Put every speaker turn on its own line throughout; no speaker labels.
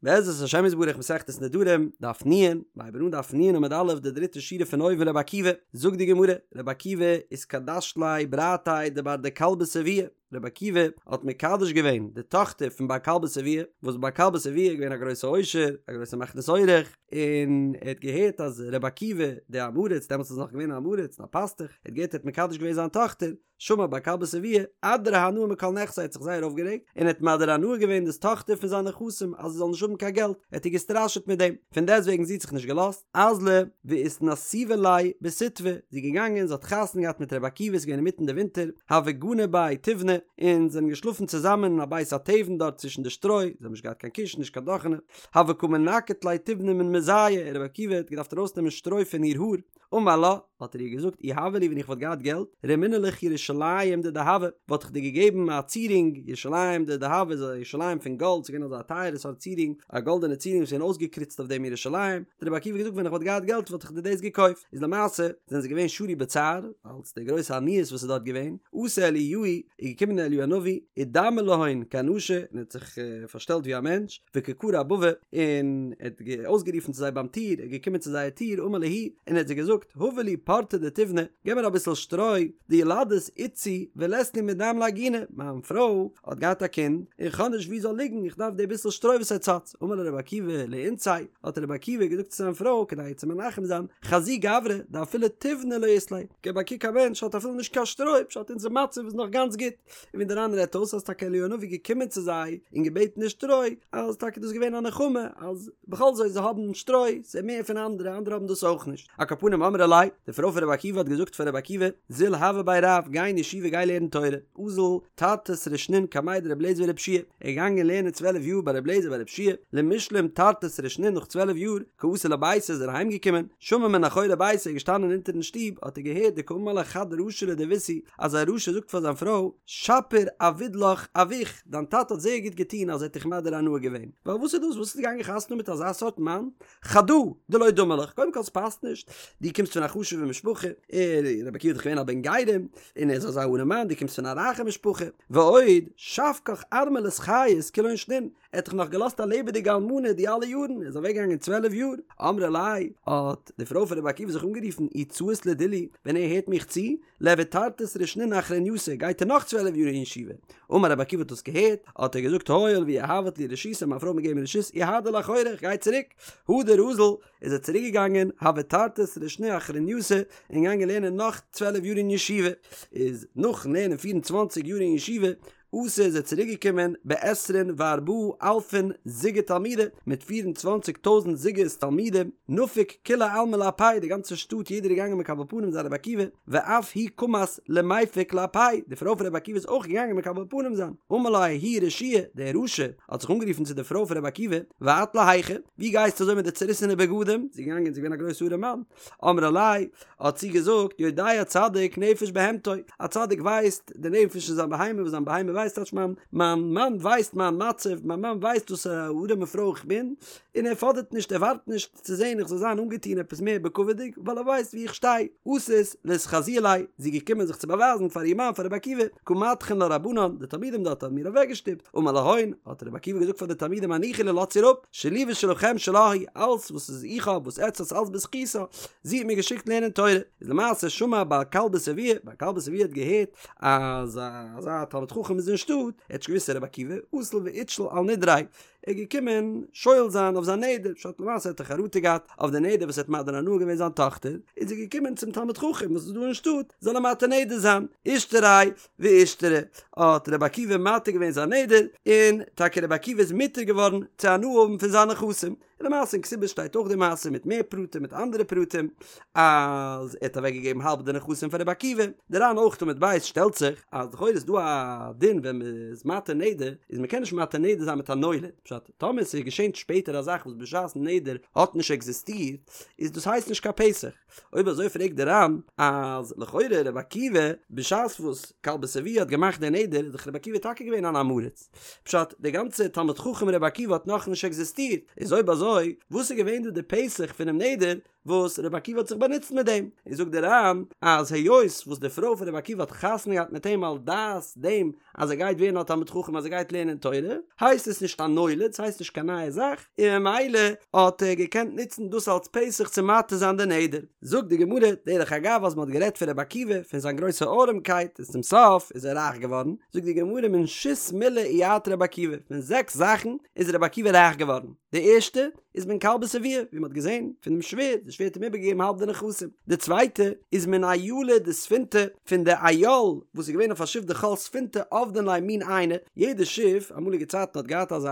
בעזרת השם יתברך מסכת נדרים, דף נ', מ'הייבן אן דף נ' עמוד א' די דריטע שורה פון אויבן רבי עקיבא, זאגט די גמרא, רבי עקיבא איתקדש ליה ברתיה דבר דכלבא שבוע, רבי עקיבא האט מקדש געווען די טאכטער פון בר כלבא שבוע, וואס בר כלבא שבוע איז געווען א גרויסע עושר, א גרויסע מכניס אורח, און ער האט געהערט אז רבי עקיבא דער עם הארץ, דעמאלטס איז נאך געווען א עם הארץ און א פאסטוך, ער האט געהערט ער האט מקדש געווען זיין טאכטער, שמע בר כלבא שבוע, אדרה הנאה מכל נכסיה האט זיך זייער אויפגערעגט, און האט מדיר הנאה געווען דאס טאכטער פון זיינע נכסים אז זי זאל נישט האבן קיין געלט, ער האט איר געסטראשעט מיט דעם, פון דעסטוועגן זי האט זיך נישט געלאזט, אזלא ואיתנסיבא ליה בסיטבא, זי איז געגאנגען זי האט חתונה געהאט מיט רבי עקיבא ס'איז געווען אינמיטן די ווינטער, הוו גנו בי תיבנא, און זיי זענען געשלאפן צוזאמען אין א בית התבן דארט צווישן די שטרוי, זיי האבן נישט געהאט קיין קישן נישט קיין דאכענע, הוה קא מנקט ליה תיבנא מן מזייה, רבי עקיבא האט געדארפט ארויסנעמען שטרוי פון איר האר, אמר לה, האט ער איר געזאגט, אי הוה לי ווען איך וואלט געהאט געלט, רמינא לך ירושלים דדהבא, וואלט איך דיר געגעבן א צירונג, ירושלים דדהבא איז א ירושלים פון גאלד, ס'איז געווען אזא טייערע סארט צירונג, א גאלדענע צירונג וואס איז געווען אויסגעקריצט אויף דעם ירושלים, האט רבי עקיבא געזאגט ווען איך וואלט געהאט געלט וואלט איך דיר דאס געקויפט, איז למעשה זענען זיי געווען שרוי בצער, אלס די גרויסע עניות וואס איז דארט געווען, אתא אליהו, איז געקומען אליהו הנביא, אידמי להון כאנשא, און האט זיך פארשטעלט ווי א מענטש, וקא קרי אבבא, און ער האט אויסגערופן צו זיי ביים טיר, ער איז געקומען צו זייער טיר, אמר להו, און ער האט זיי געזאגט, הבו לי פורתא דתיבנא, געב מיר אביסל שטרוי, דילדת איתתי ולית לי מדם לעגונה, מיין פרוי האט געהאט א קינד, און כ'האב נישט וואו זי זאל ליגן, איך דארף די ביסל שטרוי וואס עטס האטס, אמר לה רבי עקיבא לאיתתיה, האט רבי עקיבא געזאגט צו זיין פרוי, כדי איר צו מנחם זיין, חזי גברא, דאפילו תיבנא לא אית ליה, געב א קוק א מענטש האט אפילו נישט קיין שטרוי, פשט אונזער מצב איז נאך גאנץ גוט. און ווי דער ר"ן רעדט אויס אז טאקע אליהו הנביא געקומען צו זיי און געבעטן די שטרוי, אז טאקע דאס געווען א נחמה אז בכל זאת זיי האבן שטרוי, ס'איז מער פון אנדערע, אנדערע האבן דאס אויך נישט. על כל פנים אמרה ליה, די פרוי פון רבי עקיבא האט געזאגט פאר רבי עקיבא, זיל הוה בי רב, גיי אין ישיבה גיי לערן תורה, אזל תרתי סרי שנין קמיה דרבי אליעזר ורבי יהושע, ער איז געגאנגען לערנען צוועלף יאר ביי רבי אליעזר ביי רבי יהושע, למשלים תרתי סרי שנין נאך צוועלף יאר, קא אתא לביתיה איז ער אהיים געקומען, שמע מן אחורי ביתיה איז געשטאנען אונטערן שטוב האט ער געהערט דקאמר לה חד רשע לדביתהו אז א רשע זאגט פאר זיין פרוי, שפיר עביד לך אבוך, דיין טאטע האט זייער גוט געטון אז ער האט דיך מדיר הנאה געווען, ווייל וואס איז דאס וואס ביסטו געגאנגען חתונה מיט אזא סארט מאן, חדא דלא דמי לך, קודם כל ס'פאסט נישט, דו קומסט פון א חשוב'ע משפחה, ער, רבי עקיבא איז דאך געווען א בן גרים, און ער איז אזא ארעמאן, דו קומסט פון א רייכע משפחה, ועוד, שבקך ארמלות חיות כולהון שנין, ער האט דיך נאך געלאזט א לעבעדיגע אלמנה די אלע יארן, ער איז אוועק געגאנגען צוועלף יאר, אמרה ליה, האט די פרוי פון רבי עקיבא זיך אנגערופן, אי צאית לדילי, ווען ער הערט מיך צו, ליעביד תרתי סרי שנין אחרנייתא, גייט ער נאך צוועלף יאר אין ישיבה. אמר רבי עקיבא האט דאס געהערט, האט ער געזאגט הואיל ויהבת לי רשותא, מיין פרוי האט מיר געגעבן רשות, איהדר לאחורי, איך גיי צוריק. הדר אזל, איז ער צוריק געגאנגען, הוה תרתי סרי שני אחרנייתא, און געגאנגען לערנען נאך צוועלף יאר אין ישיבה. איז נאכן לערנען פיר און צוואנציג יאר אין ישיבה, אתא איז ער צוריק געקומען בעשרין וארבעה אלפין זוגי תלמידי, מיט פיר און צוואנציג טויזנט זוגות תלמידים, נפק כולי עלמא לאפיה, די גאנצע שטאט יעדער איז געגאנגען מקבל פנים זיין רבי עקיבא, ואף היא קמת למיפק לאפיה, די פרוי פון רבי עקיבא איז אויך געגאנגען מקבל פנים זיין, אמר לה ההוא רשיעא, דער רשע האט זיך אנגערופן צו די פרוי פון רבי עקיבא, ואת להיכא, ווי גייסטו אזוי מיט די צעריסענע בגדים, זי איז געגאנגען זי איז געווען א גרויסע ארעמאן, אמרה ליה, האט זי געזאגט, יודע צדיק נפש בהמתו, א צדיק ווייסט די נפש פון זיין בהמה, וואס זיין בהמה ווייסט, טייטש מיין מיין מאן ווייסט מיין מצב, מיין מאן ווייסט וואס א ארעמע פרוי איך בין, און ער פאדערט נישט, ער ווארט נישט צו זען איך זאל זיין אנגעטון עפעס מער בכבוד'יג, ווייל ער ווייסט וואו איך שטיי. אתת לאתחזויי ליה, זי איז געקומען זיך צו באווייזן פאר איר מאן פאר רבי עקיבא, קא מדחין לה רבנן, די תלמידים דארט האבן איר אוועקגעשטופט, אמר להון, האט רבי עקיבא געזאגט פאר די תלמידים הניחו לה לאזטס איר אפ, שלי ושלכם שלה היא, אלס וואס איז איך האב וואס עטץ האטס אלס בזכותה, זי האט מיר געשיקט לערנען תורה, איז למעשה שמע בר כלבא שבוע, בר כלבא שבוע האט געהערט אז אזא תלמיד חכם איז אין שטאט, ער האט נישט געוואוסט ס'איז רבי עקיבא, אזל ואיתשיל על נדריה, ער איז געקומען שואל זיין אויף זיין נדר, פשט למעשה האט ער חרטה געהאט אויף די נדר וואס ער האט מדיר הנאה געווען זיין טאכטער, איז ער געקומען צום תלמיד חכם וואס איז דא אין שטאט, זאל אים מתיר נדר זיין, אישתריה ואישתרי, האט רבי עקיבא מתיר געווען זיין נדר, און טאקע רבי עקיבא איז מותר געווארן צו הנאה האבן פון זיינע נכסים, און למעשה אין כתובות שטייט אויך די מעשה מיט מער פרטים מיט אנדערע פרטים, אז ער האט אוועק געגעבן האלב די נכסים פאר רבי עקיבא, די ר"ן אויך עמוד ב' שטעלט זיך אז לכאורה איז דא א דין ווען מען איז מתיר נדר, איז מען קען נישט מתיר נדר זיין מיט א נולד, פשט, טאמער ס'איז געשען שפעטער א זאך וואס בשעת'ן נדר האט נישט עקזיסטירט, איז דאס הייסט נישט קיין פתח. אויב אזוי פרעגט די ר"ן אז לכאורה רבי עקיבא בשעת וואס כלבא שבוע האט געמאכט די נדר איז דאך רבי עקיבא טאקע געווען אן עם הארץ, פשט די גאנצע תלמיד חכם רבי עקיבא האט נאכנישט עקזיסטירט, איז אויב אזוי וואס איז געווען דא די פתח פונעם נדר? וואס רבי עקיבא האט זיך באנוצט מיט דעם, און זאגט דער ר"ן אז היות וואס די פרוי פון רבי עקיבא האט חתונה געהאט מיט אים על דעת דעם אז ער גייט ווערן א תלמיד חכם אז ער גייט לערנען תורה, הייסט עס נישט א נולד, ס'הייסט נישט קיין נייע זאך, און ממילא האט ער געקענט נוצן דאס אלס פתח צו מתיר זיין די נדר. זאגט די גמרא, דרך אגב אז מ'האט גערעדט פון רבי עקיבא, פון זיין גרויסע ארעמקייט, און צום סוף איז ער רייך געווארן, זאגט די גמרא מן שית מילי איעתר רבי עקיבא, פון זעקס זאכן איז רבי עקיבא רייך געווארן, די ערשטע, איז מן כלבא שבוע, ווי מ'האט געזען פון דעם שווער, די שווער האט אים איבערגעגעבן האלב די נכסים. די צווייטע איז מן אילא דספינתא, פון די איל וואס איז געווען אויף א שיף דכל ספינתא עבדין ליה מין עיינא, יעדע שיף אמאליגע צייטן האט געהאט אזא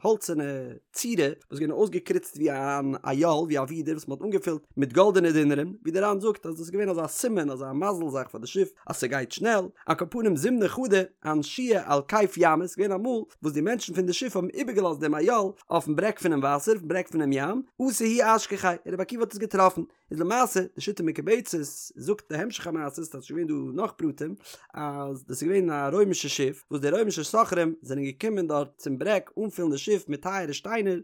האלצערנע צורה וואס איז געווען אויסגעקריצט ווי אן איל, ווי א ווידער וואס מ'האט אנגעפילט מיט גאלדענע דינרים, ווי דער ר"ן זאגט אז דאס איז געווען אזא סימן, אזא מזל זאך פאר די שיף אז ס'גייט שנעל, על כל פנים זימנא חדא אנשוה על כיף ימא, ס'איז געווען אמאל וואס די מענטשן פון די שיף האבן איבערגעלאזט דעם איל אויפן ברעג פונעם וואסער, אויפן ברעג פונעם ים, אתא הוא אשכחיה, און רבי עקיבא האט עס געטראפן. איז למעשה, די שיטה מקובצת זאגט די המשך המעשה, ס'איז געווען דא נאך פרטים, אז דאס איז געווען א רוימישע שיף, וואס די רוימישע סוחרים זענען געקומען דארט צום ברעג אנפילן די שיף מיט טייערע שטיינער,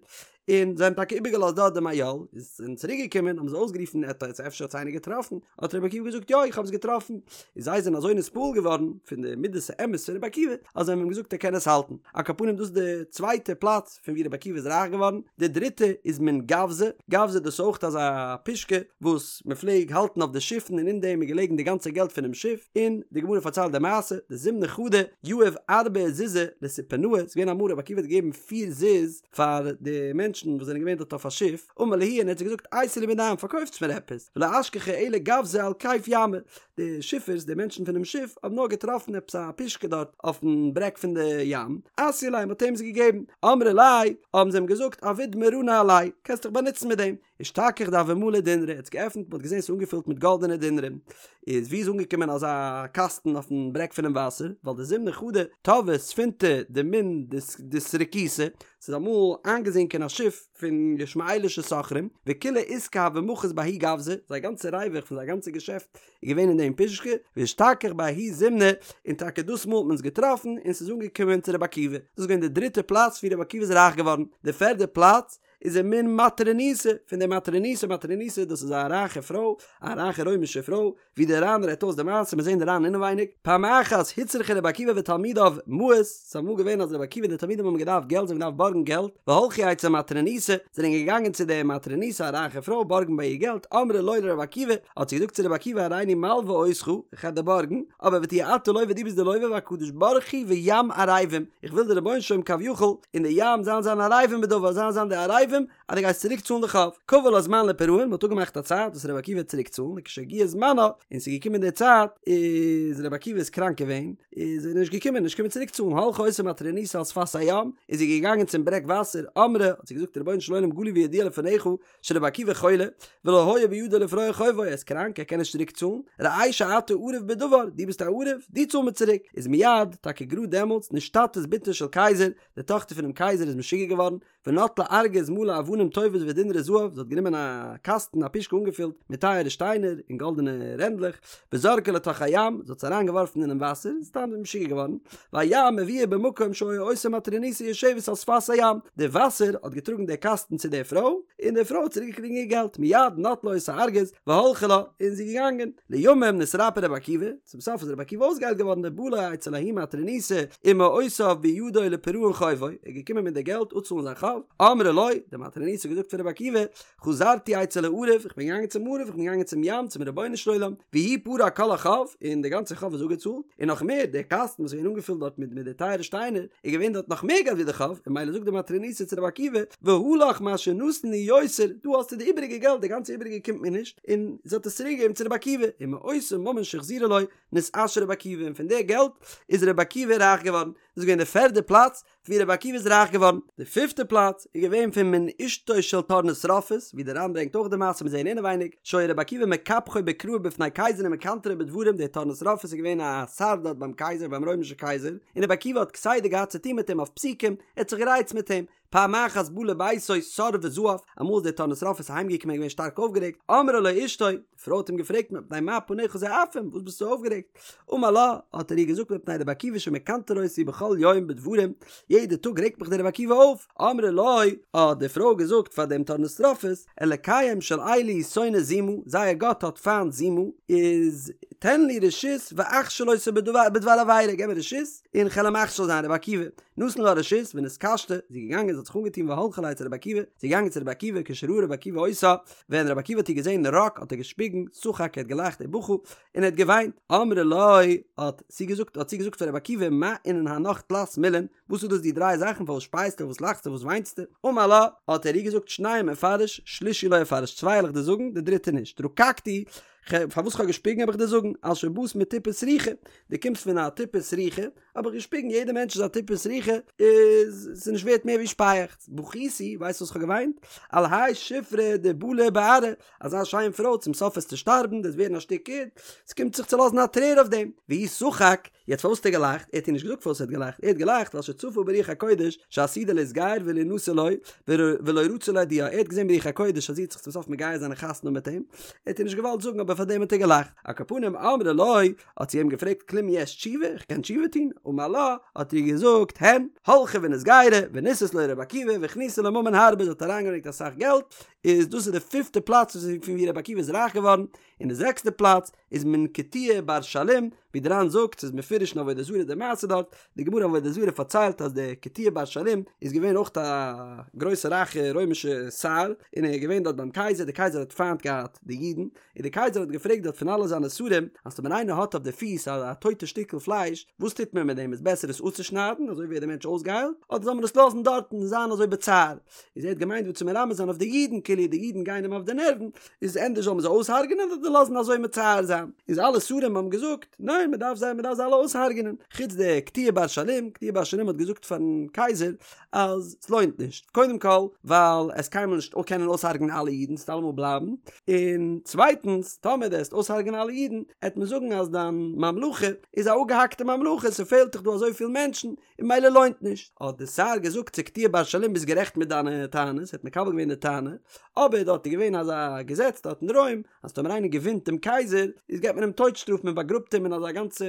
און זיי האבן טאקע איבערגעלאזט דארט דעם איל, איז זענען צוריק געקומען האבן זיי אויסגערופן עט עס אפשר האט עס איינער געטראפן, האט רבי עקיבא געזאגט יא איך האב עס געטראפן, און זיי זענען אזוי נתפעל געווארן פון די מידת האמת פון רבי עקיבא אז זיי האבן אים געזאגט ער קען עס האלטן, על כל פנים דאס איז די צווייטע פלאץ פון ווי רבי עקיבא איז רייך געווארן, די דריטע איז מן גווזא, גווזא דאס איז אויך אזא פושקע וואס מען פלעג האלטן אויף די שיפן און אין דעם איז געלעגן די גאנצע געלט פונעם שיף, און די גמרא פארציילט די מעשה, דזימנא חדא יהב ארבעה זוזי לספונאי, ס'איז געווען אמאל רבי עקיבא האט געגעבן פיר זוז פאר די מענטשן וואס זענען געווען דארט אויף א שיף, אמר להו און ער האט זיי געזאגט אייתי לי מידן פארקויפטס מיר עפעס, ולא אשכחו אלא גווזא על כיף ימא, די שיפערס די מענטשן פונעם שיף האבן נאר געטראפן עפעס א פושקע דארט אויפן ברעג פון די ים, אתיוה ליה מ'האט אים עס געגעבן, אמרי ליה האבן זיי אים געזאגט עביד מרנא עליה, קענסט דיך באנוצן מיט דעם, אשתכח דהוה מלי דינרי, ער האט עס געעפנט מ'האט געזען ס'איז אנגעפילט מיט גאלדענע דינרים, איז ווי איז אנגעקומען אזא קאסטן אויפן ברעג פונעם וואסער, ווייל דזימנא חדא טבעה ספינתא דמן דסרקותא, ס'איז אמאל איינגעזינקען א שיף פון ישמעאלישע סוחרים, וכולא עיסקא הוה מחית בההוא גווזא, זייער גאנצע ריווח פון זייער גאנצע געשעפט איז געווען אין דעם פושקע, ואשתכח בההוא זימנא, און טאקע דאס מאל האט מען עס געטראפן און ס'איז אנגעקומען צו רבי עקיבא, דאס איז געווען די דריטע פלאץ ווי רבי עקיבא איז רייך געווארן, די פערדע פלאץ איז ומן מטרוניתא, פון די מטרוניתא, מטרוניתא דאס איז א רייכע פרוי, א רייכע רוימישע פרוי, ווי דער ר"ן רעדט אויס די מעשה, מיר זעהן די ר"ן אינעווייניג, פעם אחת הוצרכו רבי עקיבא ותלמידיו מעות, ס'איז אמאל געווען אז רבי עקיבא און די תלמידים האבן געדארפט געלט, זיי האבן געדארפט בארגן געלט, והלכו אצל מטרוניתא, זענען געגאנגען צו די מטרוניתא א רייכע פרוי בארגן ביי איר געלט, אמרה לו לרבי עקיבא, האט זי געזאגט צו רבי עקיבא הריני מלווה אותך, איך וועל דיר בארגן, אבער ותהיה אתה לוה דו ביסט די לוה והקדוש ברוך הוא וים ערבים, איך וויל די רבונו של עולם כביכול און די ים זאלן זיין ערבים בדבר, זאלן זיין די ערבים אז דו גייסט צוריק צאלן די חוב. קבע לה זמן לפירעון, מ'האט אפגעמאכט א צייט וואס רבי עקיבא וועט צוריק צאלן, וכשהגיע זמנה, און ס'איז געקומען די צייט, איז רבי עקיבא איז קראנק געווען, איז ער נישט געקומען, נישט געקומען צוריק צאלן, הלכה אותה מטרוניתא על שפת הים, איז זי געגאנגען צום ברעג וואסער, אמרה, האט זי געזאגט רבונו של עולם גלוי וידוע לפניך, שרבי עקיבא חולה, ולא היה בידו לפרוע חובו, ער איז קראנק, ער קען נישט צוריק צאלן, ראה שאתה ערב בדבר, דו ביסט א ערב, דו צאל מיר צוריק, איז מיד, טאקע גראד דעמאלטס, נשתטית בתו של קיסר, די טאכטער פונעם קייזער איז משוגע געווארן, ונטלה ארגז מלא אבנים טובות ודינרי זהב, זי האט גענומען א קאסטן, א פושקע אנגעפילט מיט טייערע שטיינער און גאלדענע רענדלעך, וזרקה לתוך הים, זי האט עס אריין געווארפן אינעם וואסער, איז סתם משוגע געווארן, והים הביאה במקום שהיתה אותה מטרוניתא יושבת על שפת הים, די וואסער האט געטראגן די קאסטן צו די פרוי, און די פרוי האט צוריק געקריגן איר געלט, מיד נטלה אותו ארגז והלכה לה, און זי איז געגאנגען. לימים נתרפא רבי עקיבא, צום סוף איז רבי עקיבא אויסגעהיילט געווארן ובא לו אצל ההיא מטרוניתא ומעותיו בידו לפירעון חובו, ער איז געקומען מיט די געלט אפצאלן זיין חוב, אמרה לו, די מטרוניתא האט געזאגט פאר רבי עקיבא, חזרתי אצל הערב, איך בין געגאנגען צום ערב, איך בין געגאנגען צום ים, צום רבונו של עולם, והוא פרע כל החוב, און די גאנצע חוב איז אפגעצאלט, און נאך מער, דער קאסטן וואס איז געווען אנגעפילט דארט מיט מיט די טייערע שטיינער, איז געווען דארט נאך מער געלט ווי די חוב, און ממילא זאגט די מטרוניתא צו רבי עקיבא, והא לך מה שנתן לי יותר, דא האסטו די איבעריגע געלט, די גאנצע איבעריגע קומט מיר נישט, און זי האט עס צוריק געגעבן צו רבי עקיבא, ומאותו ממון שהחזירה לו, נתעשר רבי עקיבא, און פון די געלט איז רבי עקיבא רייך געווארן, דאס איז געווען די פערדע פלאץ ווי רבי עקיבא איז רייך געווארן. די פיפטע פלאץ איז געווען פון מן אשתו של טורנוסרופוס, ווי דער ר"ן ברענגט אויך די מעשה מיר זעהן אינעווייניג, שהיה רבי עקיבא מקפחו בקראי בפני קיסר ומקנטרו בדברים, דער טורנוסרופוס איז געווען א שר דארט ביים קייזער ביים רוימישע קייזער, און רבי עקיבא האט כסדר געהאט צו טון מיט אים אויף פסוקים, ער האט זיך גערייצט מיט אים. פעם אחת בא לביתו סר וזעף, אמאל איז דער טורנוסרופוס אהיימגעקומען געווען שטארק אויפגערעגט, אמרה לו אשתו, די פרוי האט אים געפרעגט מפני מה פניך זועפים, וואס ביסטו אויפגערעגט? אמר לה, האט ער איר געזאגט מפני רבי עקיבא שמקנטר אותי בכל יום בדברים, יעדע טאג רעגט מיך דער רבי עקיבא אויף, אמרה לו, האט די פרוי געזאגט פאר דעם טורנוסרופוס, אלקיהם של אלו שונא זימה, זייער גאט האט פיינט זימה, איז תן לי רשות ואכשיל אותו בדבר עבירה, געב מיר רשות און כ'על אים מכשיל זיין, רבי עקיבא, נתן לה רשות ונתקשטה, זי איז געגאנגען זי האט זיך אנגעטון והלכה לאצל רבי עקיבא, זי איז געגאנגען צו רבי עקיבא כשראה רבי עקיבא אותה, ווען רבי עקיבא האט איר געזען רק האט ער געשפיגן, שחק ער האט געלאכט ובכה, און ער האט געוויינט, אמרה לו, האט זי געזאגט האט זי געזאגט פאר רבי עקיבא מה אינון הנך תלת מילין, וואס איז דאס די דריי זאכן פארוואס שפייסטו פארוואס לאכסטו פארוואס וויינסטו, אמר לה, האט ער איר געזאגט שנים אפרש שלישי לא אפרש צוויי וועל איך דיר זאגן די דריטע נישט, רקקתי, פארוואס כ'האב געשפיגן וועל איך דיר זאגן, על שבאת מטיפה סרוחה, דו קומסט פון א טיפה סרוחה, האב איך געשפיגן, יעדער מענטש איז א טיפה סרוחה, איז ס'איז נישט ווערט מער ווי שפייעכץ, בכיתי, ווייסט וואס כ'האב געוויינט? על האי שופרא דבלי בארעא, אזא שיין פרוי, צום סוף וועסטו שטארבן, דו וועסט ווערן א שטיק ערד, ס'קומט זיך צו לאזן א טרער אויף דעם, והוא שחק, יעצט פארוואס האט ער געלאכט? ער האט איר נישט געזאגט פארוואס ער האט געלאכט, ער האט געלאכט ווייל שצפה ברוח הקודש שעתידה להתגייר ולהנשא לו, ולא רצה להודיעה, ער האט געזען ברוח הקודש אז זי וועט זיך צום סוף מגייר זיין און חתונה האבן מיט אים, ער האט איר נישט געוואלט זאגן אבער פאר דעם האט ער געלאכט, על כל פנים אמרה לו, האט זי אים געפרעגט כלום יש תשובה, איך קען תשובה טון? אמר לה, האט ער איר געזאגט, הן, הלכה ונתגיירה, ונשאת לו רבי עקיבא, והכניסה לו ממון הרבה, זי האט אריינגעברענגט אסאך געלט, איז דאס איז די פיפטע פלאץ פון ווי רבי עקיבא איז רייך געווארן, און די זעקסטע פלאץ איז מן קטיעה בר שלום, ווי די ר"ן זאגט ס'איז מפורש אין עבודה זרה די מעשה דארט, די גמרא אין עבודה זרה פארציילט אז דער קטיעה בר שלום איז געווען אויך א גרויסע רייכע רוימישע שר, און ער איז געווען דארט ביים קייזער, די קייזער האט פיינט געהאט די אידן, און די קייזער האט געפרעגט דארט פון אלע זיינע שרים, אז טאמער איינער האט אויף די פיס א טויטע שטיקל פלייש, וואס טוט מען מיט דעם, איז בעסער עס אפצושניידן, אזוי ווערט דער מענטש אויסגעהיילט, אדער זאל מען עס לאזן דארטן און זיין אזוי בצער. איז ער האט געמיינט דא צו מרמז זיין אויף די אידן, כאילו די אידן גייען אים אויף די נערוון, איז ענדערש זאל מען זיי אויסהארגענען אדער לאזן אזוי מצער זיין. איז אלע שרים האבן געזאגט, ניין מען דארף זיי מען דארף זיי אלע אויסהארגענען, חוץ דער קטיעה בר שלום, קטיעה בר שלום האט געזאגט פארן קייזער אז ס'לוינט נישט, קודם כל ווייל עסט קיינמאל נישט קענען אויסהארגענען אלע אידן, ס'וועט אלעמאל בלייבן, און צווייטנס טאמער דו עסט אויסהארגענען אלע אידן, עט מען זאגן אז דיין ממלכה איז א אפגעהאקטע ממלכה, ס'פעלט דיך דא אזויפיל מענטשן, און ממילא לוינט נישט. האט די שר געזאגט צו קטיעה בר שלום ביסט גערעכט מיט דיינע טענות, ער האט מקבל געווען די טענה, אבער דארט איז געווען אזא געזעץ דארט אין רוים, אז טאמער איינער געווינט דעם קייזער, איז געבט מען אים טויט שטראף מען באגראבט אים אין אזא גאנצע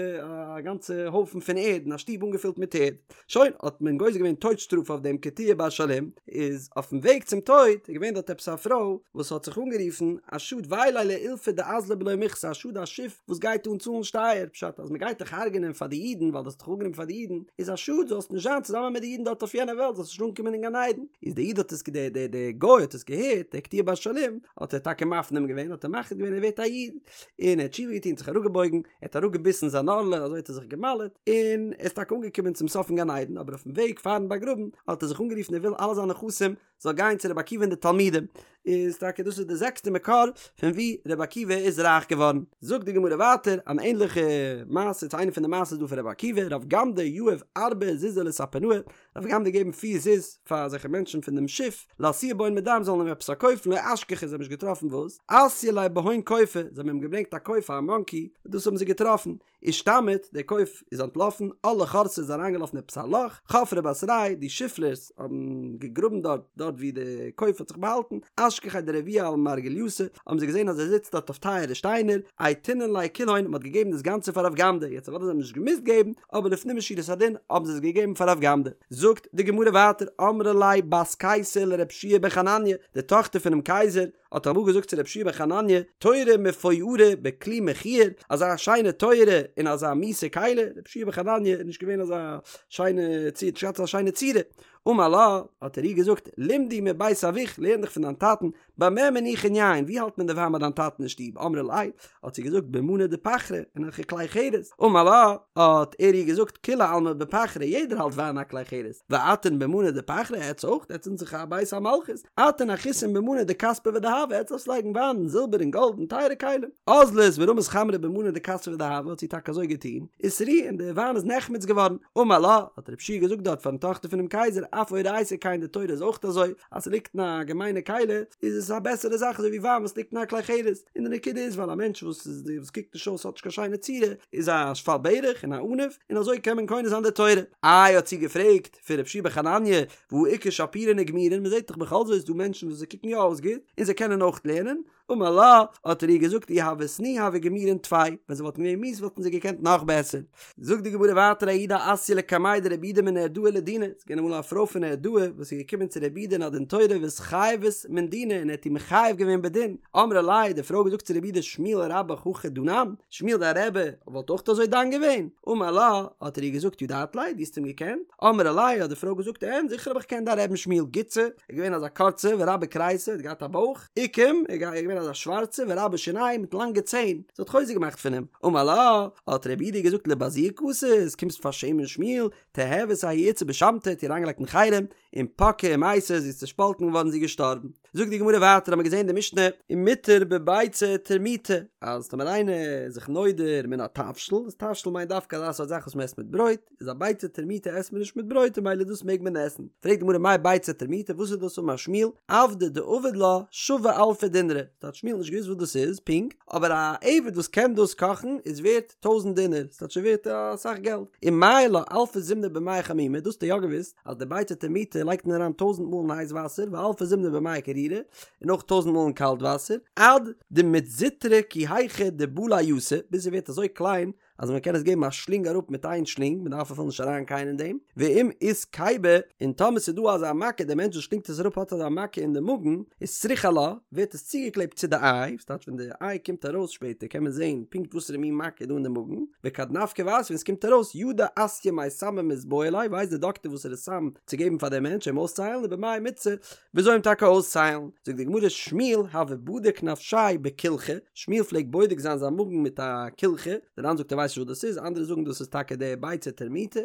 א גאנצע הויפן פון ערד אין א שטוב אנגעפילט מיט ערד. שוין, האט מען גוזר געווען טויט שטראף אויף דעם קטיעה בר שלום, איז אויפן וועג צום טויט איז געווען דארט עפעס א פרוי וואס האט זיך אנגערופן, א שאד וויי ליה לאילפא דאזלא בלא מיכסי, א שאד א שיף וואס גייט אן צאלן שטייער, פשט אז מען גייט דיך הרג'נען פאר די אידן ווייל דו האסט דיך אנגענומען פאר די אידן, איז א שאד זאלסט נישט זיין צוזאמען מיט די אידן דארט אויף יענע וועלט, זאלסט נישט אנקומען אין גן עדן. איז די איד האט עס די די די גוי האט עס געהערט, דער קטיעה בר שלום, האט ער טאקע מפנים געווען, האט ער מחליט געווען ער ווערט א איד, און ער האט תשובה געטון, זיך אראפגעבויגן, ער האט אראפגעביסן זיין ערלה, אזוי האט ער זיך גע'מל'עט, און ער איז טאקע אנגעקומען צום סוף אין גן עדן, אבער אויפן וועג פארן באגראבן האט ער זיך אנגערופן ער וויל אלע זיינע נכסים זאל גיין צו רבי עקיבא און די תלמידים, איז טאקע דאס איז די זעקסטע מקור פון ווי רבי עקיבא איז רייך געווארן. זאגט די גמרא ווייטער אן ענליכע מעשה צו איינע פון די מעשות דא פון רבי עקיבא, רב גמדא יהב ארבע זוזי לספנאי, רב גמדא געגעבן פיר זוז פאר אזעלכע מענטשן פון דעם שיף, לאתויי בהון מדם זאלן אים עפעס פארקויפן, לא אשכחו זיי האבן נישט געטראפן וואס, אתיי ליה בהון קופא, זיי האבן אים געברענגט א קוף א מאנקי, דאס האבן זיי געטראפן, אישתמיט, דער קוף איז אנטלאפן, על לחורתא איז אריינגעלאפן עפעס א לאך, חפרי בתריה, די שיפלערס האבן געגראבן דארט, דארט ווי די קוף האט זיך באהאלטן, אשכחיה דרביע על מרגלייתא, האבן זיי געזען אז ער זיצט דארט אויף טייערע שטיינער, אייתינן ליה כולהון, מען האט געגעבן דאס גאנצע פאר רב גמדא, יעצט אוודאי זיי האבן נישט געמוזט געבן, אבער לפנים משורת הדין האבן זיי עס געגעבן פאר רב גמדא. זאגט די גמרא ווייטער, אמרה ליה בת קיסר לרב שיע בן חנניה, די טאכטער פונעם קייזער, האט אמאל געזאגט צו רב שיע בן חנניה, תורה מפוארה בכלי מכוער, אזא שיינע תורה אין אזא מיאוסע כלי, רב שיע בן חנניה איז נישט געווען אזא שיינע צורה, נישט געהאט אזא שיינע צורה, אמר לה, האט ער איר געזאגט, למדי מבית אבוך, לערן דיך פון דיין טאטן, במה מניחין יין, ווי האלט מען די וויין ביי דיין טאטן אין שטוב, אמרה ליה, האט זי געזאגט במאני דפחרא, אין אזעלכע כלי חרס, אמר לה, האט ער איר געזאגט, כולי עלמא בפחרא, יעדער האלט וויין אין א כלי חרס, ואתון במאני דפחרא, עטץ אויך, עטץ זענט דאך א בית המלכות, אתון אחית במאני דכספא ודהבא. ודהבא, עטס דארפטס לייגן וויין אין זילבער און גאלד און טייערע כלים. אזלת ורמית חמרא במנא דכספא ודהבא האט זי טאקע אזוי געטון, ושרי און די וויין איז נחמץ געווארן. אמר לה, האט רב יהושע געזאגט דארט פארן טאכטער פונעם קייזער, אף אורייתא כן די תורה איז אויך אזוי, אז ס'ליגט אין א געמיינע כלי איז עס א בעסערע זאך אזוי ווי וויין וואס ליגט אין א כלי חרס, און די נקודה איז ווייל א מענטש וואס איז וואס קוקט נישט אויס האט נישט קיין שיינע צורה איז א שפל ברך און א עניו און אזוי קען מען קונה זיין די תורה. איי האט זי געפרעגט פון רב יהושע בן חנניה והא איכא שפירין וגמירין מ'זעט דאך בכל זאת איז דא מענטשן וואס זיי קוקן יא אויס גוט און זיי קענען אויך לערנען, אמר לה, האט ער איר געזאגט אי הוו סני הוו גמירין טפי, ווען זיי וואלטן געווען מיאוס וואלטן זיי געקענט נאך בעסער. זאגט די גמרא ווייטער ההיא דאתיא לקמיה דרב יהודה מנהרדעא לדינא, ס'איז געווען אמאל א פרוי פון נהרדעא וואס איז געקומען צו רב יהודה אין א דין תורה ואיתחייבת מן דינא און ער האט איר מחייב געווען בדין, אמרה ליה, די פרוי האט געזאגט צו רב יהודה שמואל רבך הכי דנן, שמואל דיין רבי וואלט אויך אזוי דן געווען? אמר לה, האט ער איר געזאגט ידעת ליה, דו האסט אים געקענט? אמרה ליה, האט די פרוי געזאגט אין, זיכער האב איך געקענט דיין רבי'ן שמואל גוצא, ער איז געווען אזא קורצע ורבה כריסיה, ער האט געהאט א בויך, אוקים, ער איז געווען אזא שווארצע ורבה שינייהו מיט לאנגע ציין, זי האט חוזק געמאכט פון אים, אמר לה, האט רב יהודה געזאגט לבזויי קאתית, קומסט פארשעמען שמואל, תיהבת ההיא איתתא בשמתא, האט איר אריינגעלייגט אין חרם, און פקעה ומתה, זי איז צעשפאלטן געווארן זי איז געשטארבן. זאגט די גמרא ווייטער האמיר געזען אין די משנה, ומותר בביצה טורמיטא, אז טאמער איינער איז זיך נודר מן התבשיל, איז תבשיל מיינט דווקא אזא סארט זאך וואס מען עסט מיט ברויט, איז א ביצה טורמיטא עסט מען נישט מיט ברויט און ממילא דאס מעג מען עסן. פרעגט די גמרא מאי ביצה טורמיטא וואס איז דאס אמר שמואל עבדא דעביד לה שוי אלפא דינרי, ס'טייטש שמואל האט נישט געוואוסט וואס דאס איז פונקט, אבער א עבד וואס קען דאס קאכן איז ווערט טויזנט דינר, ס'טייטש ס'איז ווערט אסאך געלט. ומעייר לה אלפא זימני במיא חמימי, דאס האט ער יא געוואוסט אז די ביצה טורמיטא לייגט מען אריין טויזנט מאל אין הייס וואסער ואלפא זימני במיא קרירי, און אויך טויזנט מאל אין קאלט וואסער, עד דמיתזוטרא כי היכי דבלע יתא, ביז ס'ווערט אזוי קליין אז מען קען עס געבן א שלינג אראפ מיט איין שלינג, מען דארף אפילו נישט אריין קייען אין דעם, ואם אית קיבה, און טאמער ס'איז דא אזא מכה, דער מענטש וואס שלינגט עס אראפ האט אזא מכה אין די מאגן, איז סריך עלה, ווערט עס צוגעקלעבט צו די איי, ס'טייטש ווען די איי קומט ארויס שפעטער קען מען זען פונקט וואסערע מין מכה איז דא אין די מאגן, וכד נפקא ואתיא ווען ס'קומט ארויס, ידע אסיא מאי סמא מיתבעי ליה, ווייסט די דאקטער וואסערע סם צו געבן פאר דעם מענטש אים אויסצוהיילן, ובמאי מיתסי, וויאזוי אים טאקע אויסצוהיילן, זאגט די גמרא שמואל הוה בדיק נפשיה בקולחא, שמואל פלעגט בודק זיין זיין מאגן מיט א קולחא, דער ר"ן זאגט ער ווייסט נישט וואס דאס איז, אנדערע זאגן דאס איז טאקע די ביצה טורמיטא,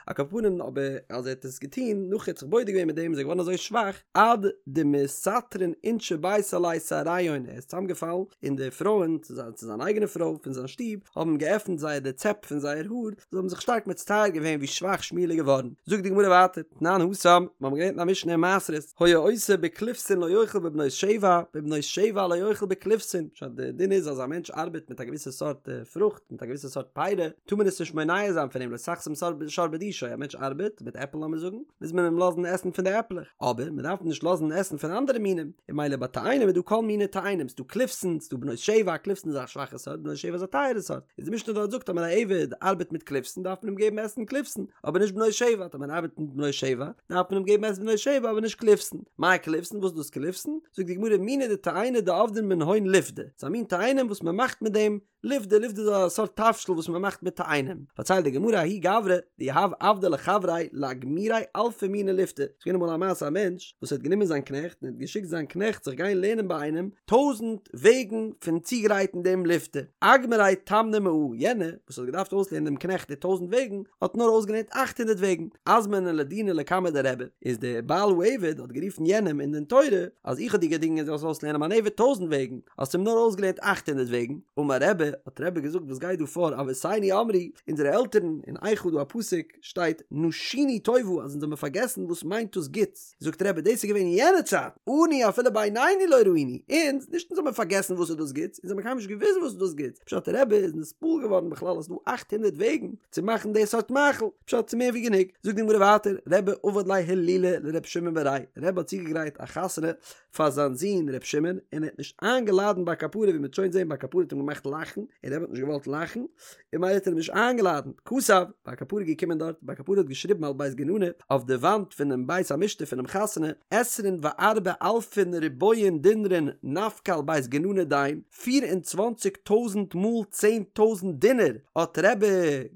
על כל פנים אבער אז ער האט עס געטון נאך ער האט זיך בודק געווען מיט דעם איז ער געווארן אזוי שוואך עד דמסטרין אינשי ביתיה עליה שעריהון, ער איז צוזאמגעפאלן און די פרויען, צו זיין אייגענע פרוי פון זיין שטוב, האבן געעפנט זייער די צעפ פון זייער האר, זיי האבן זיך שטארק מצטער געווען ווי שוואך שמואל איז געווארן. זאגט די גמרא ווייטער, תנן התם, מיר האבן געלערנט אין א משנה אין מעשרות, היה עושה בקליפסין לא יאכל בבנות שבע, בבנות שבע לא יאכל בקליפסין, פשט די דין איז אז א מענטש ארבעט מיט א געוויסע סארט פרוכט, מיט א געוויסע סארט פירי, טאר מען עס נישט מונע זיין פון אים, לא תחסום שור בדישו, א מענטש ארבעט מיט עפל לאמיר זאגן, מוז מען אים לאזן עסן פון די עפלעך, אבער מען דארף אים נישט לאזן עסן פון אנדערע מינים, און ממילא ביי תאנים איז דא כל מיני תאנים, ס'דא קליפסין, ס'דא בנות שבע, קליפסין איז א שוואכע סארט, בנות שבע איז א טייערע סארט, איז די משנה דארט זאגט אז ווען א עבד ארבעט מיט קליפסין דארף מען אים געבן עסן קליפסין, אבער נישט בנות שבע, טאמער ער ארבעט מיט בנות שבע דארף מען אים געבן עסן בנות שבע אבער נישט קליפסין, מאי קליפסין וואס איז דאס קליפסין? זאגט די גמרא מיני דתאיני דעבדין מנהון לפדי, ס'איז א מין תאנים וואס מען מאכט מיט דעם לפדי, לפדי איז א סארט תבשיל וואס מען מאכט מיט תאנים, פארציילט די גמרא ההוא גברא דיהב עבדא לחבריה לאגמוריה אלפא מיני לפתא, ס'איז געווען אמאל א מעשה א מענטש וואס האט גענומען זיין קנעכט און האט געשיקט זיין קנעכט זיך גיין לערנען ביי איינעם טויזנט וועגן פון צוגרייטן דעם לפתא, אגמריה תמני מאה, יענער וואס האט געדארפט אויסלערנען דעם קנעכט די טויזנט וועגן האט נאר אויסגעלערנט אכט הונדערט וועגן, אזמניה לדינא לקמיה דרבי, איז דער בעל העבד האט גערופן יענעם אין דין תורה אז איך האב דיר געדינגען זאלסט אויסלערנען מיין עבד טויזנט וועגן, האסט אים נאר אויסגעלערנט אכט הונדערט וועגן, אמר רבי, האט רבי געזאגט וואס גייט דא פאר אבותינו אמרו, אונזערע עלטערן, אין איכה דא א פסוק שטייט נשינו טובה אז אונז האבן פארגעסן וואס מיינט דאס גוטס, זאגט רבי דאס איז געווען אין יענע צייט, אנו אפילו בעינינו לא ראינו, אונז, נישט אונז האבן פארגעסן וואס איז דאס גוטס, אונז האבן קיינמאל נישט געוואוסט וואס איז דאס גוטס, פשט רבי איז נתפעל געווארן בכלל אז ס'דא אכט הונדערט וועגן צו מאכן די סארט מאכל, פשט ס'איז מער ווי גענוג, זאגט די גמרא ווייטער, רבי עבד ליה הילולא לר' שמעון בריה, רבי האט צוגעגרייט א חתונה פאר זיין זון ר' שמעון און ער האט נישט איינגעלאדענט בר קפרא ווי מ'וועט שוין זעהן בר קפרא האט אים געמאכט לאכן און רבי האט נישט געוואלט לאכן און ממילא האט ער אים נישט איינגעלאדענט כתב בר קפרא איז געקומען דארט בר קפרא האט געשריבן על בית גננא אויף די וואנט פונעם בית המשתה פונעם חתונה עשרין וארבע אלפין ריבועין דינרין נפקא על בית גננא דין פיר און צוואנציג טויזנט מאל צען טויזנט דינר האט רבי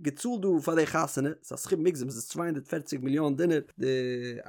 געצאלט דא פאר די חתונה, ס'איז א סכום מוגזם, ס'איז 240 מיליאן דינר, די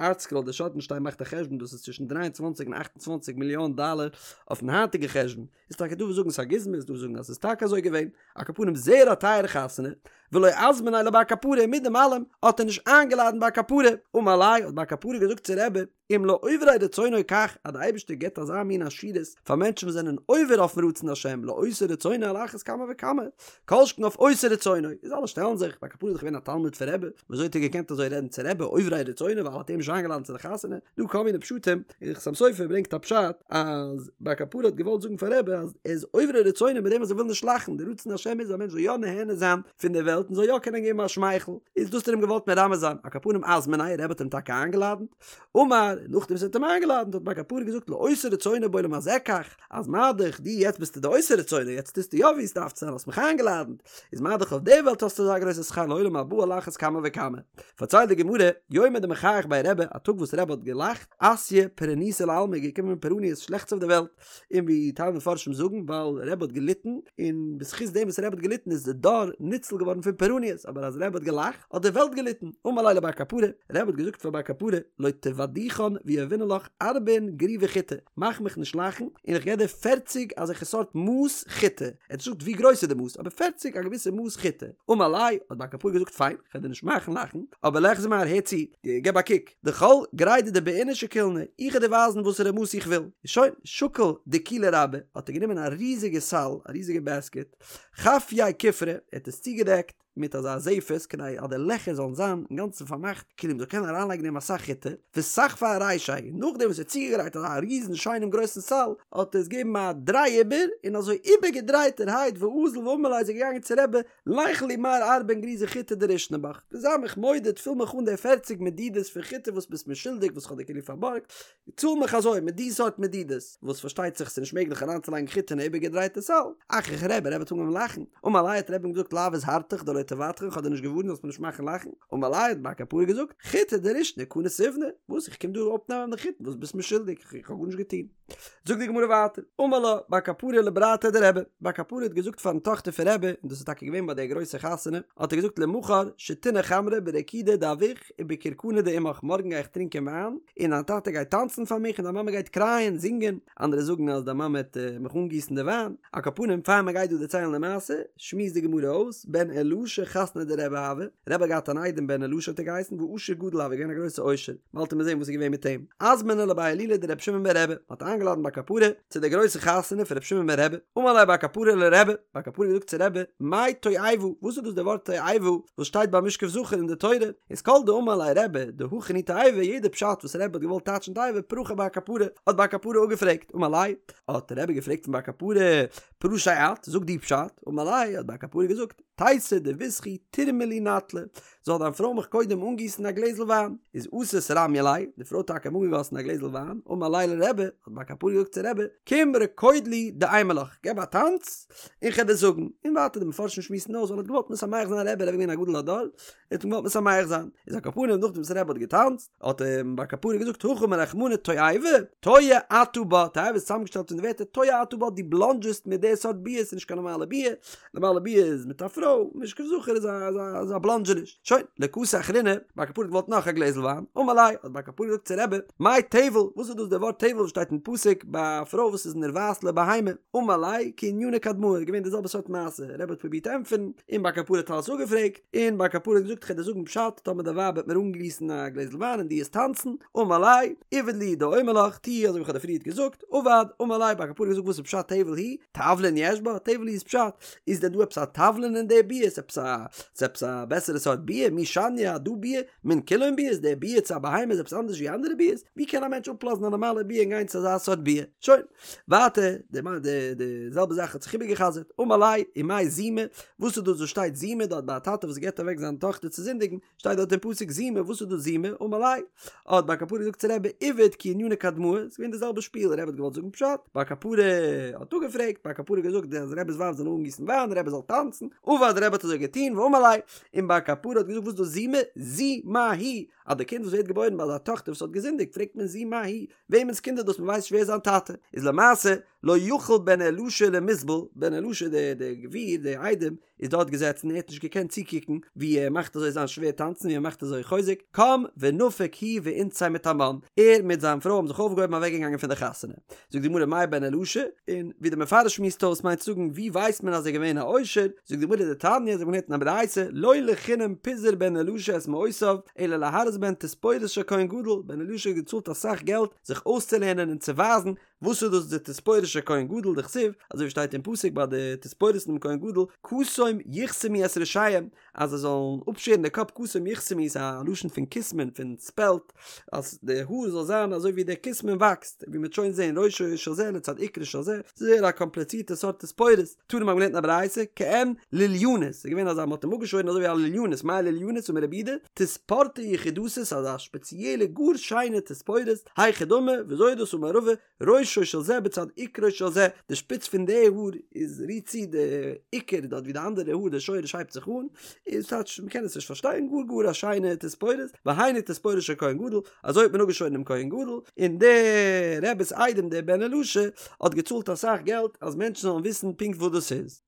ארטסקרול די שאטנשטיין מאכט א חשבון דאס איז צווישן 23 און 28 מיליאן דאלער אויפן היינטיגע חשבון, איז טאקע דא וואס זאגן ס'איז א גוזמא איז דא וואס זאגן אז ס'איז טאקע אזוי געווען, על כל פנים זייער א טייערע חתונה. ולא אזמניה לבר קפרא, מיט דעם אלעם האט ער נישט איינגעלאדענט בר קפרא, אמר ליה האט בר קפרא געזאגט צו רבי, אם לעוברי רצונו כך, אז די אייבערשטער געבט אזא מין עשירות פאר מענטשן וואס זענען עובר אויפן רצון השם, לעושי רצונו על אחת כמה וכמה, כל שכן אויף עושי רצונו, איז אלע שטעלן זיך, בר קפרא איז דאך געווען א תלמיד פון רבי, ווי אזוי האט ער געקענט אזוי רעדן צו רבי, עוברי רצונו ווייל ער האט אים נישט איינגעלאדענט צו די חתונה, דא כל מיני פשטים, און חתם סופר ברענגט א פשט אז בר קפרא האט געוואלט זאגן פאר רבי אז ער איז עוברי רצונו מיט דעם אז ער וויל נישט לאכן, די רצון השם איז אז א מענטש זאל יא נהנה זיין פון די וועלט און זאל יא קענען געבן א שמייכל, איז דאס האט ער אים געוואלט מרמז זיין, על כל פנים אזמניה, רבי האט אים טאקע איינגעלאדענט, אמר, נאכדעם וואס ער האט אים איינגעלאדענט האט בר קפרא געזאגט לעושה רצונו בעולם הזה כך, אז מה דאך דו יעצט ביסטו די עושה רצונו, יעצט טוסטו יא ווי עס דארף צו זיין, האסט מיך איינגעלאדענט, איז מה דאך אויף די וועלט האסטו אזא גרויסע שכר לעולם הבא על אחת כמה וכמה. פארציילט די גמרא, יומא דמחייך ביה רבי, א טאג וואס רבי האט געלאכט, אתיא פורענותא לעלמא איז געקומען פורעניות שלעכטס אויף די וועלט, און ווי טייל מפרשים זאגן ווייל רבי האט געליטן, און בזכות דעם וואס רבי האט געליטן איז די דור ניצול געווארן פון פורעניות, אבער אז רבי האט געלאכט האט די וועלט געליטן, אמר ליה לבר קפרא, רבי האט געזאגט פאר בר קפרא, לא תבדיחן ויהיבנא לך ארבעין גריוי חיטי, מאך מיך נישט לאכן, און איך געב דיר פערציג אזעלכע סארט מאס חיטה, ער האט נישט געזאגט ווי גרויס איז די מאס, אבער פערציג א געוויסע מאס חיטה, אמר ליה, האט בר קפרא געזאגט פיין, כ'וועל דיר נישט מאכן לאכן, אבער ליחזי מר הער צו, געב א קוק, דכל גרידא דבעינא שקילנא, איך וועל דיר ווייזן וואסערע מאס איך וויל, שוין, שקל דיקולא רבה, האט ער גענומען א ריזיגע סל, א ריזיגע בעסקעט, חפייה כופרא, ער האט עס צוגעדעקט מיט אזא זפת כדי אז די לעכער זאלן זיין אינגאנצן פארמאכט, כאילו מ'זאל קענען אריינלייגן אין דעם אסאך חיטה, וסחפיה ארישיה, און נאכדעם וואס ער האט צוגעגרייט אזא ריזן שיינעם גרויסן סל, האט ער עס געגעבן א דריי איבער, און אזוי איבערגעדרייטערהייט ואזל ואמר ליה איז ער געגאנגען צו רבי, ליכלי מר ארבעין גריוי חיטי דרישנא בך, דו זיי מיך מודד, פיל מיך אן די פערציג מדידות פון חיטה וואס ביסט מיר שולדיג וואס כ'האב דיר כאילו פארבארגט, צאל מיך אזוי מיט די סארט מדידות, וואס פארשטייט זיך ס'איז נישט מעגליך אריינצולייגן חיטה אין א איבערגעדרייטע סל. אחיך רבי, רבי האט אנגעהויבן לאכן, אמר ליה האט רבי אים געזאגט לאו הזהרתיך דלא תבדחן כ'האב דיר נישט געווארנט זאלסט מיר נישט מאכן לאכן, אמר ליה האט בר קפרא געזאגט, חיטי דרישנא קני סיבנא, וואס איך קום דא אפנעמען די חיטה וואס ביסט מיר שולדיג, כ'האב גארנישט געטון. זאגט די גמרא ווייטער, אמר לה בר קפרא לברתיה דרבי, בר קפרא האט געזאגט פארן טאכטער פון רבי, און דאס איז טאקע געווען ביי די גרויסע חתונה, האט ער געזאגט למחר שתינא חמרא ברקידא דאבוך ובכרכנא דאמך, מארגן גיי איך טרינקען וויין, און דיין טאטע גייט טאנצן פאר מיך און דיין מאמע גייט קרייען, זינגען, אנדערע זאגן אז דיין מאמע העט מיך אנגיסן די וויין, על כל פנים פאר מען גייט דא דערציילן די מעשה, שמועסט די גמרא אויס, בן אלעשה חתניה דרבי הוה, רבי האט געהאט אן איידעם בן אלעשה האט ער געהייסן, ועשיר גדול הוה, געווען א גרויסע עושר. באלד וועט מען זען וואס איז געווען מיט אים. אזמניה לבי הילולא דרבי שמעון ברבי, מען האט איינגעלאדן בר קפרא צו די גרויסע חתונה פון רבי שמעון ברבי, אמר ליה בר קפרא לרבי, בר קפרא האט געזאגט צו רבי, מאי תועבה, וואס איז דאס די ווארט תועבה וואס שטייט ביי משכב זכר אין די תורה, איז כל דאמר ליה רבי דהכין הוא תועבה, יעדע פשט וואס רבי האט געוואלט טייטשן תועבה פרכיה בר קפרא, האט בר קפרא אפגעפרעגט, אמר ליה, האט רבי געפרעגט פון בר קפרא, פרשיה את, זאג דו פשט, אמר ליה, האט בר קפרא געזאגט, תיתי דביתכי תרמי לי נטלא, זאל דיין פרוי מיך קודם אנגיסן א גלעזל וויין. איז אתת רמיא ליה, די פרוי האט טאקע אים אנגעגאסן א גלעזל וויין, אמר ליה לרבי, האט בר קפרא געזאגט צו רבי, קום רקוד לי דאימא לך, געב א טאנץ, און כ'על דיר זאגן. און ווייטער די מפרשים שמועסן אויס, ווייל ער האט געוואלט משמח זיין רבי, רבי איז געווען א גדול הדור, ער האט אים געוואלט משמח זיין. איז על כל פנים נאכדעם וואס רבי האט געטאנצט, האט אים בר קפרא געזאגט הכי אמר רחמנא תועבה, תועה אתה בה, תועבה איז צוזאמגעשטעלט פון די ווערטער תועה אתה בה, דו בלאנדזשעסט מיט די סארט ביאה, ס'איז נישט קיין נארמאלע ביאה, נארמאלע ביאה איז מיט א פרוי, משכב זכר איז א איז א בלאנדזשעניש. שוין, לא קאתי אחרינא, בר קפרא האט געוואלט נאך א גלעזל וויין, אמר ליה, האט בר קפרא געזאגט צו רבי, מאי טבל, וואס איז דאס די ווארט טבל וואס שטייט אין פסוק ביי א פרוי וואס איז נרבעת לבהמה, אמר ליה, כענינא קדמאה, איז געווען די זעלבע סארט מעשה, רבי האט פרובירט ענטפערן, און בר קפרא האט אלעס אפגעפרעגט, און בר קפרא האט געזאגט כ'על דיר זאגן פשט, טאמער די ווייב וועט מיר אנגיסן א גלעזל וויין און דו עסט טאנצן, אמר ליה, עביד לי דאומר לך, טו אזוי ווי כ'האב דיר פריערט געזאגט, עבד, אמר ליה, בר קפרא האט געזאגט וואס איז פשט טבל הוא? תבלין יש בה? טבל הוא איז פשט, איז דען דא עפעס א תבלין אין די ביאה? איז עפעס א, איז עפעס א בעסערע סארט ביאה? מי שניא הדא ביאה? מן כולן ביאות? די ביאה צו א בהמה איז עפעס אנדערש ווי אנדערע ביאות? ווי קען א מענטש אפלאזן א נארמאלע ביאה און גיין צו אזא סארט ביאה? שוין. ווייטער, די די די זעלבע זאך האט זיך איבערגע'חזר'ט, אמר ליה, ומאי זימה, וואס איז דאס וואס שטייט זימה דארט ביי א טאטע וואס געבט אוועק זיין טאכטער צו זינדיגן, שטייט דארט אין פסוק זימה, וואס איז דאס זימה? אמר ליה, האט בר קפרא געזאגט צו רבי, עביד כענינא קדמאה, ס'איז געווען די זעלבע שפיל, רבי האט געוואלט זאגן פשט, בר קפרא האט אפגעפרעגט, בר קפרא האט געזאגט אז רבי'ס ווייב זאל אנגיסן וויין, רבי זאל טאנצן, עבד, רבי האט אזוי געטון, ואמר ליה, און בר קפרא האט געזאגט וואס איז דאס זימה? זו מה היא, אז די קינד וואס ווערט געבוירן ביי אזא טאכטער וואס האט געזינדיגט, פרעגט מען זו מה היא, וועמענס קינד איז דאס מען ווייסט נישט ווער זיין טאטע איז למעשה לא יכול בן אלעשה למיסבל, בן אלעשה דער דער גביר דער איידעם. איז דארט געזעצן ער האט נישט געקענט צוקוקן ווי ער מאכט אזוי זיין שווער טאנצן ווי ער מאכט אזוי חוזק, קם ונפק הוא ואינתתיה מתמן, ער מיט זיין פרוי האבן זיך אויפגעהויבן אוועקגעגאנגען פון די חתונה. זאגט די גמרא מאי בן אלעשה, און ווי דער מפרש שמועסט אויס מיינט צו זאגן ווי ווייסט מען אז ער איז געווען א עושר, זאגט די גמרא דתניא אזוי ווי מ'לערנט אין א ברייתא, לא לחינם פיזר בן אלעשה את מעותיו, אלא להראות בהן תספורת של כהן גדול, בן אלעשה האט געצאלט אסאך געלט זיך אויסצולערנען און צו ווייזן וואס איז דאס די תספורת של כהן גדול דכתיב, אזוי ווי שטייט אין פסוק ביי די תספורת פונעם כהן גדול, כתום יכתמו את ראשיהם, אז זיי זאלן אפשערן די קאפ כתום יכתמו איז א לשון פון כסמין פון ספעלט, אז די האר זאל זיין אזוי ווי דער כסמין וואקסט, ווי מ'וועט שוין זען ראשו של זה לצד עיקרו של זה, ס'איז זייער א קאמפליצירטע סארט תספורת, תנא מ'האט געלערנט אין א ברייתא, כעין לוליינית, ס'איז געווען אזא מ'האט אים אפגעשוירן אזוי ווי א לוליינית, מאי לוליינית אמר רב יהודה, תספורתא יחידתא אזא שפעציעלע גאר שיינע תספורת, היכי דמי, וויאזוי איז דאס אמר רבא, ראשו של זה בצד עיקרו של זה, די שפיץ פון די האר איז רירט צו די עיקר דארט ווי די אנדערע האר די שורש הייבט זיך אן, איז טייטש מ'קען עס נישט פארשטיין, גאר גאר א שיינע תספורת, והיינו תספורת של כהן גדול, אזוי האט מען אפגעשוירן דעם כהן גדול, און דער רבי'ס איידעם דער בן אלעשה האט געצאלט אסאך געלט אז מענטשן זאלן וויסן פונקט וואס דאס איז.